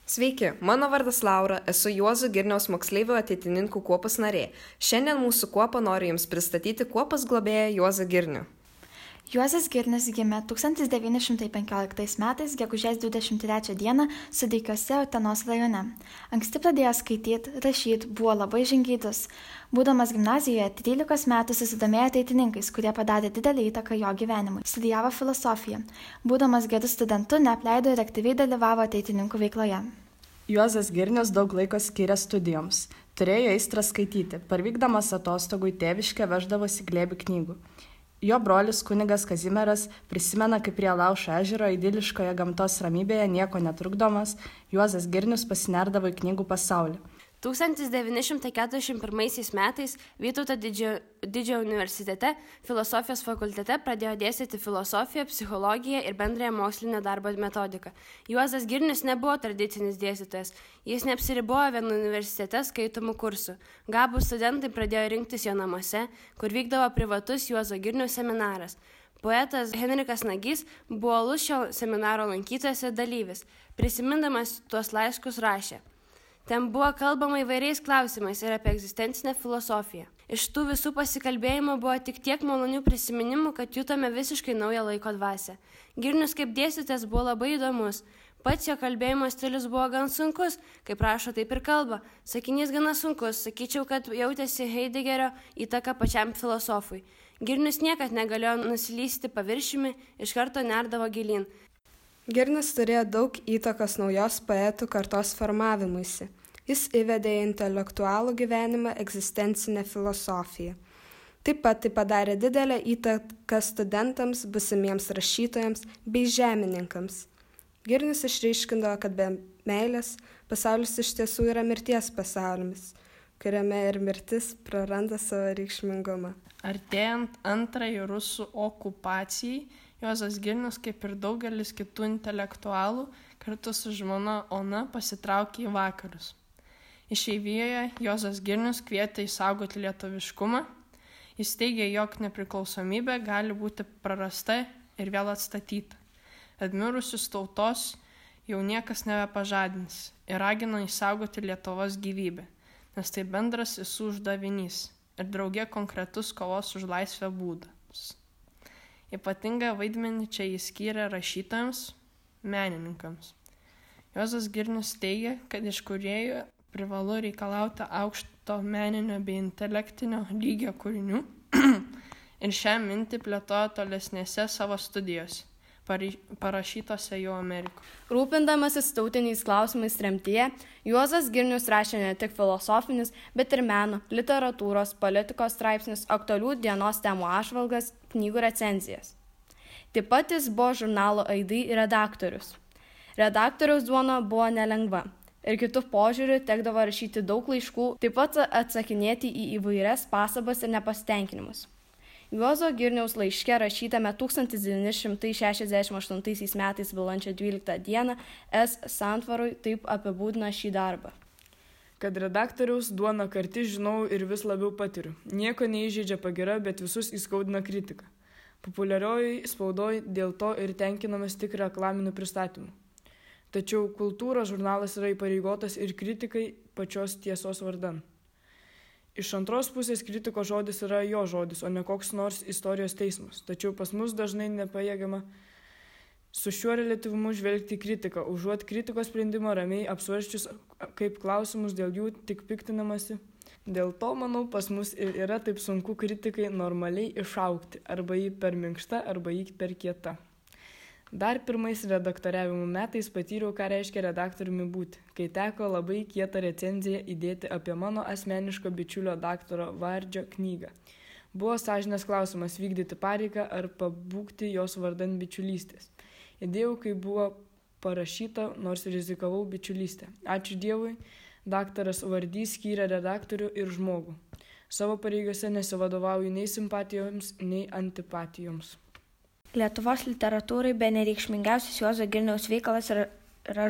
Sveiki, mano vardas Laura, esu Juozo Girniaus moksleivių ateitininkų kuopos narė. Šiandien mūsų kuopą noriu Jums pristatyti kuopos globėją Juozą Girnių. Juozas Girnius gimė 1915 metais, gegužės 23 dieną, Sudeikiuose, Utenos rajone. Anksti pradėjo skaityti, rašyti, buvo labai žingeidus. Būdamas gimnazijoje, 13 metų susidomėjo ateitininkais, kurie padarė didelį įtaką jo gyvenimui. Studijavo filosofiją. Būdamas gerų studentų, neapleido ir aktyviai dalyvavo ateitininkų veikloje. Juozas Girnius daug laiko skyrė studijoms. Turėjo aistrą skaityti. Parvykdamas atostogų į tėviškę veždavosi glėbį knygų. Jo brolis kunigas Kazimieras prisimena, kaip prie Laušo ežero idiliškoje gamtos ramybėje nieko netrukdomas, Juozas Girnius pasinerdavo į knygų pasaulį. 1941 metais Vytauto didžiojo universitete filosofijos fakultete pradėjo dėstyti filosofiją, psichologiją ir bendrąją mokslinio darbo metodiką. Juozas Girnius nebuvo tradicinis dėstytojas, jis neapsiribojo vienu universitete skaitomų kursų. Gabūs studentai pradėjo rinktis jo namuose, kur vykdavo privatus Juozo Girniaus seminaras. Poetas Henrikas Nagys buvo uolus šio seminaro lankytojas ir dalyvis. Prisimindamas tuos laiškus rašė: ten buvo kalbama įvairiais klausimais ir apie egzistencinę filosofiją. Iš tų visų pasikalbėjimų buvo tik tiek malonių prisiminimų, kad jutome visiškai naują laiko dvasią. Girnius kaip dėstytojas buvo labai įdomus. Pats jo kalbėjimo stilius buvo gan sunkus, kaip rašo, taip ir kalba. Sakinys gana sunkus, sakyčiau, kad jautėsi Heideggerio įtaka pačiam filosofui. Girnius niekad negalėjo nusilysti paviršiumi, iš karto nerdavo gilyn. Girnius turėjo daug įtakos naujos poetų kartos formavimuisi. Jis įvedė į intelektualų gyvenimą egzistencinę filosofiją. Taip pat tai padarė didelę įtaką studentams, būsimiems rašytojams bei žemininkams. Girnius išryškindavo, kad be meilės pasaulis iš tiesų yra mirties pasaulis, kuriame ir mirtis praranda savo reikšmingumą. Artėjant antrajai rusų okupacijai, Juozas Girnius, kaip ir daugelis kitų intelektualų, kartu su žmona Ona pasitraukė į vakarus. Išeivijoje Juozas Girnius kvietė išsaugoti lietuviškumą. Jis teigė, jog nepriklausomybė gali būti prarasta ir vėl atstatyta. Atmirusius tautos jau niekas nebepažadins ir ragino išsaugoti Lietuvos gyvybę, nes tai bendras visų uždavinys ir drauge konkretus kovos už laisvę būdas. Ypatingą vaidmenį čia jis skyrė rašytojams, menininkams. Juozas Girnius teigia, kad iš kūrėjų privalu reikalauti aukšto meninio bei intelektinio lygio kūrinių ir šią mintį plėtojo tolesnėse savo studijose, parašytose jau Amerikoje. Rūpindamasis tautiniais klausimais tremtyje, Juozas Girnius rašė ne tik filosofinius, bet ir meno, literatūros, politikos straipsnius, aktualių dienos temų apžvalgas, knygų recenzijas. Taip pat jis buvo žurnalo Aidai redaktorius. Redaktoriaus duona buvo nelengva ir kitų požiūrių tekdavo rašyti daug laiškų, taip pat atsakinėti į įvairias pastabas ir nepasitenkinimus. Juozo Girniaus laiške rašytame 1968 metais balandžio 12 dieną S. Santvarui taip apibūdina šį darbą. Kad redaktoriaus duona karti žinau ir vis labiau patiriu. Nieko neįžeidžia pagyra, bet visus įskaudina kritika. Populiarioji spaudoj dėl to ir tenkinamės tik reklaminių pristatymų. Tačiau kultūros žurnalas yra įpareigotas ir kritikai pačios tiesos vardan. Iš antros pusės kritiko žodis yra jo žodis, o ne koks nors istorijos teismas. Tačiau pas mus dažnai nepajėgiama su šiuo reliatyvumu žvelgti į kritiką, užuot kritikos sprendimą ramiai apsvarsčius kaip klausimus, dėl jų tik piktinamasi. Dėl to, manau, pas mus ir yra taip sunku kritikai normaliai išaugti, arba jį per minkšta, arba jį per kieta. Dar pirmais redaktoriavimo metais patyriau, ką reiškia redaktoriumi būti, kai teko labai kietą recenziją įdėti apie mano asmeniško bičiulio daktaro Vardžio knygą. Buvo sąžinės klausimas vykdyti pareigą ar pabūgti jos vardan bičiulystės. Įdėjau, kai buvo parašyta, nors rizikavau bičiulystę. Ačiū Dievui, daktaras Vardys skyrė redaktorių ir žmogų. Savo pareigose nesivadovauju nei simpatijoms, nei antipatijoms. Lietuvos literatūrai bene reikšmingiausias Juozo Girniaus veikalas yra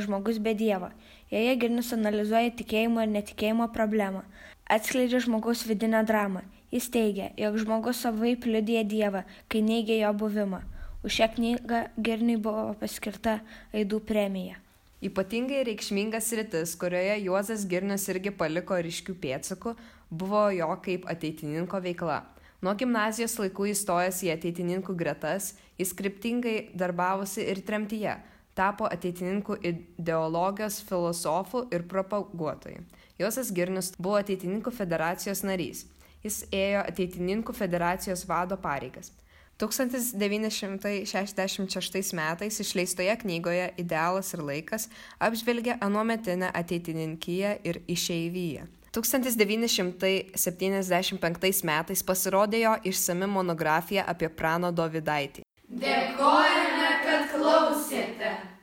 Žmogus be Dievo. Joje Girnius analizuoja tikėjimo ir netikėjimo problemą, atskleidžia žmogaus vidinę dramą. Jis teigia, jog žmogus savaip liudija Dievą, kai neigia jo buvimą. Už šią knygą Girniui buvo paskirta Aidų premija. Ypatingai reikšmingas sritis, kurioje Juozas Girnius irgi paliko ryškių pėdsakų, buvo jo kaip ateitininko veikla. Nuo gimnazijos laikų įstojęs į ateitininkų gretas, jis kryptingai darbavosi ir tremtyje, tapo ateitininkų ideologijos filosofu ir propaguotoju. Juozas Girnius buvo ateitininkų federacijos narys. Jis ėjo ateitininkų federacijos vado pareigas. 1966 metais išleistoje knygoje Idealas ir laikas apžvelgia anuometinę ateitininkiją ir išeiviją. 1975 metais pasirodė jo išsami monografija apie Prano Dovydaitį. Dėkojame, kad klausėte.